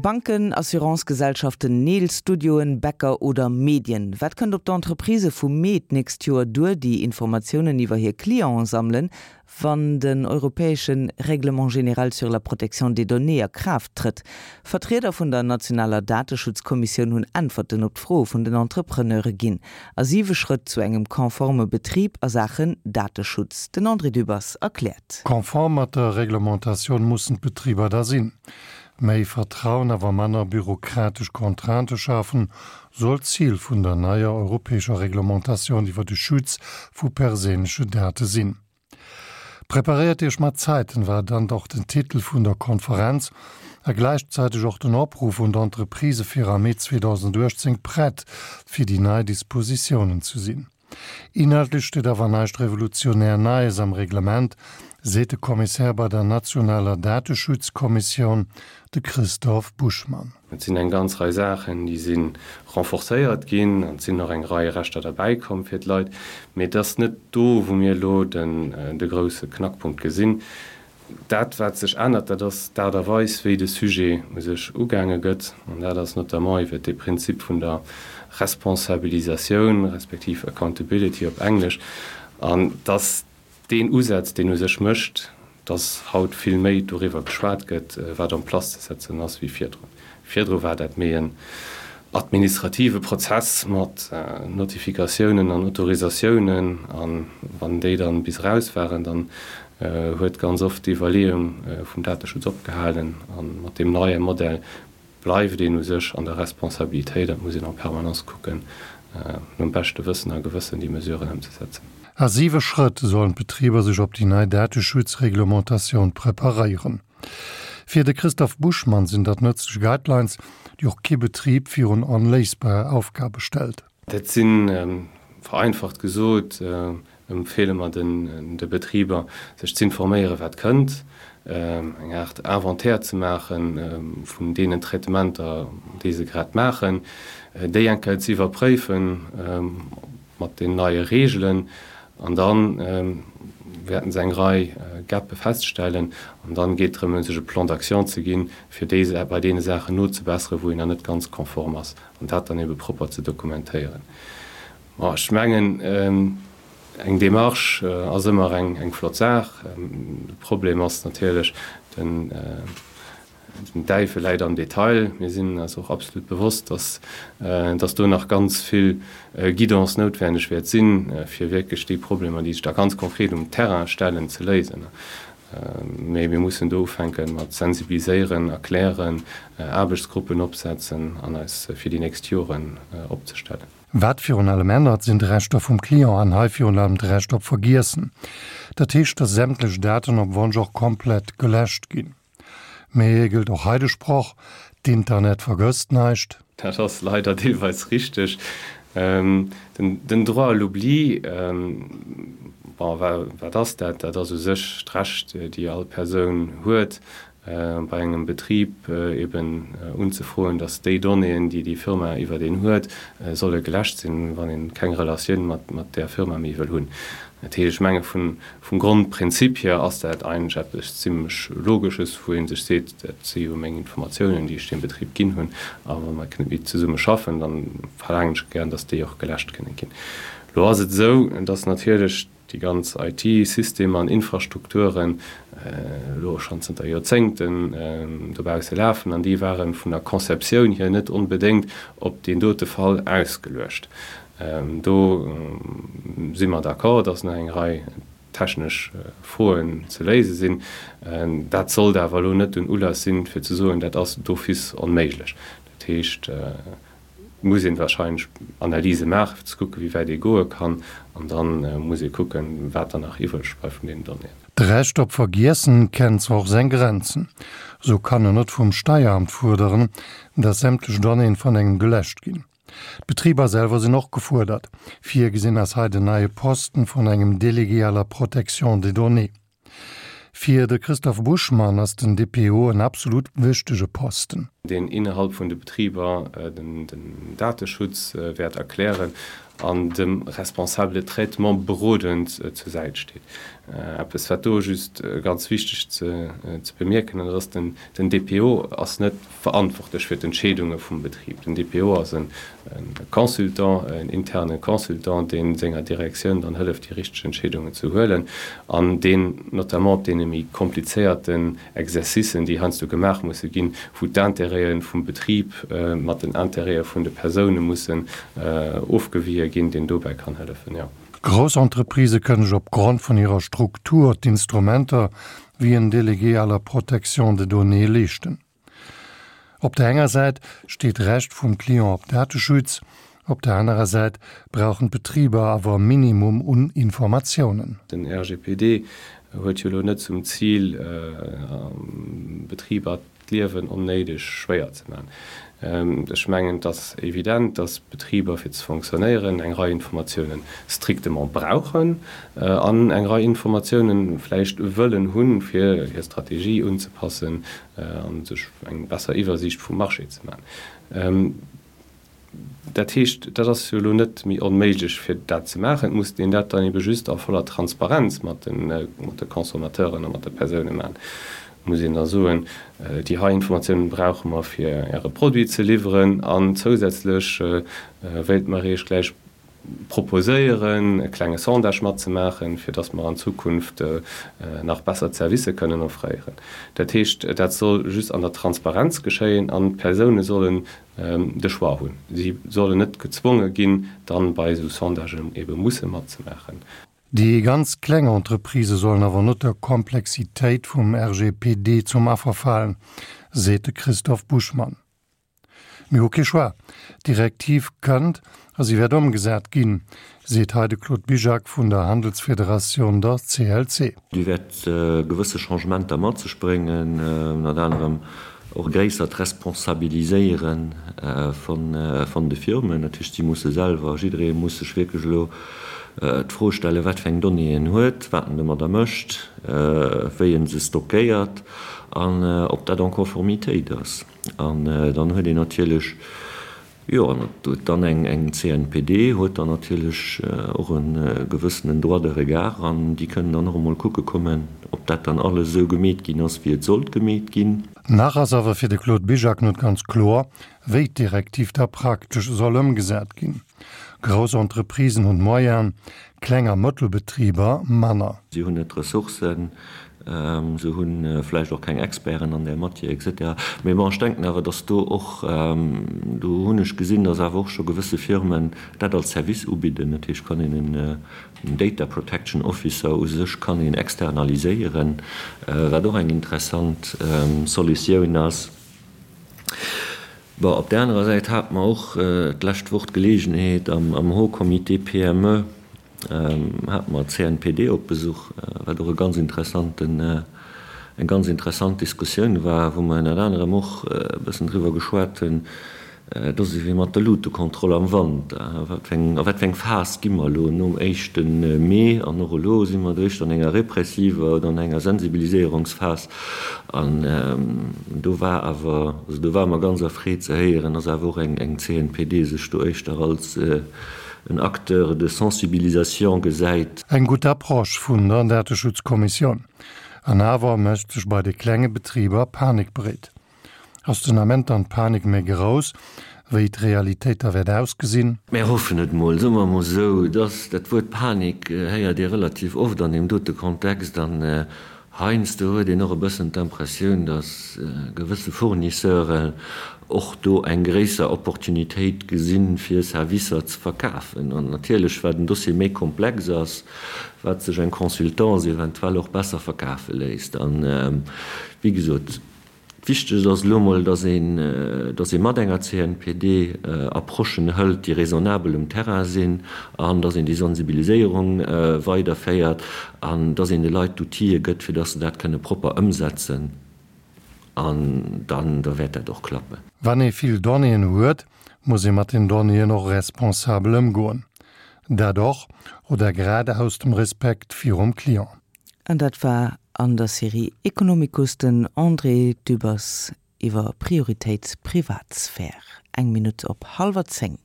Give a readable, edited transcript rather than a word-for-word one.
Banken, Assurancegesellschaften, Neelstudioen, Bäcker oder Medien. Wat kënnt op d'Entreprisë vu Mee d'nächst Joer duer, déi Informatiounen iwwer hir Clienten sammelen, wann den europäesche Règlement général sur la protection des données a Kraaft trëtt? Vertrieder vun der nationaler Dateschutzkommissioun hunn Äntwerten op d'Froe vun den Entrepreneure ginn. A siwe Schrëtt zu engem konforme Betrib a Saachen Dateschutz. Den André Dübbers erkläert. Konform mat der Reglementatioun mussen d'Betriber da sinn. Méi Vertrauen, awer manner bürokratesch Contraintë schafen, soll d'Zil vun der neier europäescher Reglementatioun iwwer de Schutz vu perséinleche Date sinn. Preparéiert Iech mat Zäiten war dann och den Titel vun der Konferenz a gläichzäiteg och den Opruff un d'Entreprisë fir am Mee 2018 prett fir déi nei Dispositiounen ze sinn. Inhaltlech steet awer näischt revolutionär Neies am Reglement, seet de Kommissär bei der nationaler Dateschutzkommissioun, de Christoph Buschmann. Et sinn eng ganz Rei Saachen, déi si renforcéiert ginn an et sinn och eng Rei Rechter derbäikomm fir d'Leit. Mee et ass net do, wou mir elo de grousse Knackpunkt gesinn. Dat, wat sech ännert, dat ass d'Aart a Weis, wéi de Sujet u sech ugaange gëtt. An dat ass notamment iwwert dee Prinzip vun der Responsabilisatioun, respektiv Accountability op Englesch. An dass deen Usaz, deen u sech mécht, dass haut vill méi doriwwer geschwat gëtt, wat en place ze setzen ass, wéi virdrun. Virdru war dat méi en administrative Prozess mat Notifikatiounen an Autorisatiounen, a wann déi dann bis eraus waren, dann huet ganz oft d'Iwwerleeung vum Dateschutz opgehalen. A mat deem neie Modell bleift een u sech an der Responsabilitéit an et muss een en permanence kucken, nom beschte Wëssen a Gewëssen déi Mesuren ëmzesetzen. A siwe Schrëtt sollen d'Betriber sech op déi nei Dateschutzreglementatioun preparéieren. Fir de Christoph Buschmann sinn dat nëtzlech Guidelines, déi och kee Betrib virun onléisbar Aufgabe stellt. Dat si vereinfacht gesot, empfeele mer de Betriber, sech z'informéieren, wat kënnt, eng Aart Inventaire ze maache vun deenen Traitementer, déi se grad maachen, déi eng Kéier ze iwwerpréifen mat den neie Reegelen An da wäerten se eng Rei Gape feststellen. An dann geet et drëm, sech e Plan d'action ze ginn, fir déi, bei deene Saachen nozebesseren, wou een nach net ganz konform ass, an dat dann ebe propper ze dokumentéieren. Bon, ech mengen, eng Démarche ass ëmmer eng flott Saach. De Problem ass natierlech den, Den Däiwel läit am Detail. Mir sinn eis och absolut bewosst, dass, dass do nach ganz vill Guidance noutwenneg wäert sinn, fir wierklech déi Problemer, déi sech da ganz konkret um Terrain stellen, ze léisen. Mee mir mussen do ufänke mat sensibiliséieren, erklären, Aarbechtsgruppen opsetzen an eis fir déi nächst Joren opzestellen. Wat virun allem ännert, sinn d'Rechter vum Client an hei virun allem d'Recht op Vergiessen. Dat heescht, dass sämtlech Daten op Wonsch och komplett geläscht ginn. Mee gëllt och hei de Sproch, D'Internet vergësst näischt? Dat ass leider deelweis richteg. Den Droit à l'oubli, bon, wat ass dat? Dat ass u sech d'Recht, déi all Persoun huet, bei engem Betrib eben unzefroen, datt déi Donnéeën, déi déi Firma iwwert een huet, solle geläscht sinn, wann ee keng Relatioun mat där Firma méi wëll hunn. Dat heescht, ech menge vum Grondprinzip hier ass dat eigentlech eppes zimlech Logesches, wou ee sech seet, dat si jo meng Informatiounen, déi ech deem Betrib ginn hunn, a wa mer net méi zesumme schaffen, da verlaangen ech gären, datt déi och geläscht kënne ginn. Elo ass et esou, datt natierlech déi ganz IT-Systemer an Infrastrukturen elo schonn zënter Joerzéngten dobausse lafen an déi ware vun der Conceptioun hier net onbedéngt op deen dote Fall ausgeluecht. Do si mer d'accord, dass nach eng Rei technesch Froen ze léise sinn. Dat sollt awer elo net den Ulass sinn, fir ze soen, dat ass d'office onméiglech. Dat heescht, et muss ee wahrscheinlech Analyse maachen, fir ze kucken, wéi wäit ee goe kann. An da muss ee kucken, wat dann nach iwwreg bleift vun deenen Donnéeën. D'Recht op Vergiessen kennt zwar och seng Grenzen. Sou kann en net vum Steieramt fuerderen, dass sämtlech Donnéeën vun engem geläscht ginn. D'Betriber selwer sinn och gefuerdert. Virgesinn ass hei den neie Posten vun engem Délégué à la protection des données. Fir de Christophe Buschmann ass den DPO en absolut wichtege Posten. Deen innerhalb vun de Betriber den Dateschutz wäert erklären an dem Responsable de traitement berodend zur Säit steet. Eppes wat do just ganz wichteg ze bemierken, dat ass, den DPO ass net verantwortlech fir d'Entscheedunge vum Betrib. Den DPO ass e Consultant, en interne Consultant, dee senger Direktioun dann hëlleft, déi richteg Entscheedungen ze huelen an deen notamment op deene méi komplizéierten Exercicen, déi heiansdo gemaach musse ginn, wou d'Intérêtë vum Betrib mat den Intérêtë vun de Persoune mussen ofgewie ginn, deen dobäi kann hëllefen, jo. Grouss Entreprisë kënnen sech opgrond vun hirer Struktur d'Instrumenter wéi en Délégué à la protection des données leeschten. Op der enger Säit steet d'Recht vum Client op Dateschutz, op der anerer Säit brauchen d'Betriber awer e Minimum un Informatiounen. Den RGPD huet jo elo net zum Zil, Betriber d'Liewen onnéideg schwéier ze man. Ech mengen, et ass evident, dass Betriber fir ze fonctionnéieren eng Rei Informatiounen strictement brauchen an eng Rei Informatiounen vläicht wëllen hunn, fir hir Strategie unzepassen a sech eng besser Iwwersiicht vum Marché ze man. Dat heescht, dat ass jo elo net méi onméiglech, fir dat ze maachen. Et muss een dat dann ebe just a voller Transparenz mat de Consommateuren a mat de Persoune maachen. Et muss een da soen, déi hei Informatiounen brauche mer, fir Äre Produit ze liwweren an zousätzlech wéilte mer Iech gläich proposéieren, e klenge Sondage matzemaachen, fir dass mer an Zukunft nach besser Zerwisse kënnen offréieren. Dat heescht, dat soll just an der Transparenz geschéien an d'Persoune sollen de Choix hunn. Si sollen net gezwonge ginn, dann bei esou Sondagen ebe musse matzemaachen. Déi ganz kleng Entreprisë sollen awer net der Komplexitéit vum RGPD zum Affer falen, seet de Christoph Buschmann. Mir hu kee Choix. D'Direktiv kënnt a si wäert ëmgesat ginn, seet hei de Claude Bizjak vun der Handelsfederatioun, der CLC. Déi wäert gewësse Changementer mat sech bréngen, ënnert anerem och e gréissert Responsabiliséiere vun de Firmen. Dat heescht, si musse selwer, jidderee muss sech wierklech elo d'Fro stellen, wat fir eng Donnéeën en huet, wat en domadder mécht, wéi e se stockéiert an ob dat en Conformitéit ass. An dann huet een natierlech, jo, an et huet dann eng CNPD huet dann natierlech och e gewëssenen Droit de regard an déi kënnen dann och emol kucke kommen, ob dat dann alles esou gemeet ginn ass, wéi et sollt gemeet ginn. Nach ass awer fir de Claude Bizjak net ganz kloer, wéi d'Direktiv da praktesch soll ëmgesat ginn. Grouss Entreprisen hunn d'Moyenen, Kleng a Mëttelbetriber manner. Si hunn net d'Ressourcen, se hu vläicht och keng Experten an där Matière et cetera. Mee bon, ech denken awer, datt do och, do hunn ech gesinn, datt awer och scho gewësse Firmen dat als Service ubidden. Dat heescht, kann een en Data Protection Officer u sech kann een externaliséieren, wat och eng interessant Solutioun ass. Bon, op där anerer Säit hate mer och d'lescht Woch d'Geleegenheet am Haut Comité PME hate mer d'CNPD op Besuch, wat och e ganz interessanten, eng ganz interessant Diskussioun war, wou mer ënnert anerem och e bëssen driwwer geschwat hunn, Et ass ewéi mat der Luutekontroll am Wanter. A wat fir eng, a wat fir eng Phas gi mer elo nom éischte Mee? An och elo si mer eréischt an enger repressiver oder an enger Sensibiliséierungsphas. An do war awer, also do ware mer ganz erfreet ze héieren, dass awer och eng, eng CNPD sech do éischter als en Acteur de sensibilisation gesäit. Eng gutt Approche vun der Dateschutzkommissioun. An awer mécht sech bei de klenge Betriber Panik breet. Ass den Ament dann d'Panik méi grouss, wéi d'Realitéit da wäert ausgesinn? Mär hoffen et mol, soe mer emol esou. Dass dat Wuert Panik héiert ee relativ oft an deem dote Kontext an heiansdo huet een och e bëssen d'Impressioun, dass gewësse Fournisseuren och do eng gréisser Opportunitéit gesinn, fir Servicer ze verkafen. An natierlech, wat en Dossier méi komplex ass, wat sech eng Consultance eventuell och besser verkafe léisst. An, wéi gesot, Wichteg ass elo emol, dass een, dass ee mat enger CNPD Approchen hëlt, déi raisonnabel um Terrain sinn, an dass een déi Sensibiliséierung weiderféiert an dass een de Leit d'Outile gëtt, fir dass se dat kënne propper ëmsetzen. An dann, da wäert dat och klappen. Wann ee vill Donnéeën huet, muss ee mat den Donnéeën och responsabel ëmgoen. Dat och, oder grad aus dem Respekt virum Client. An dat war an der Serie Economicus den André Dübbers iwwer Prioritéit Privatsphär. Eng Minutt op hallwer 10.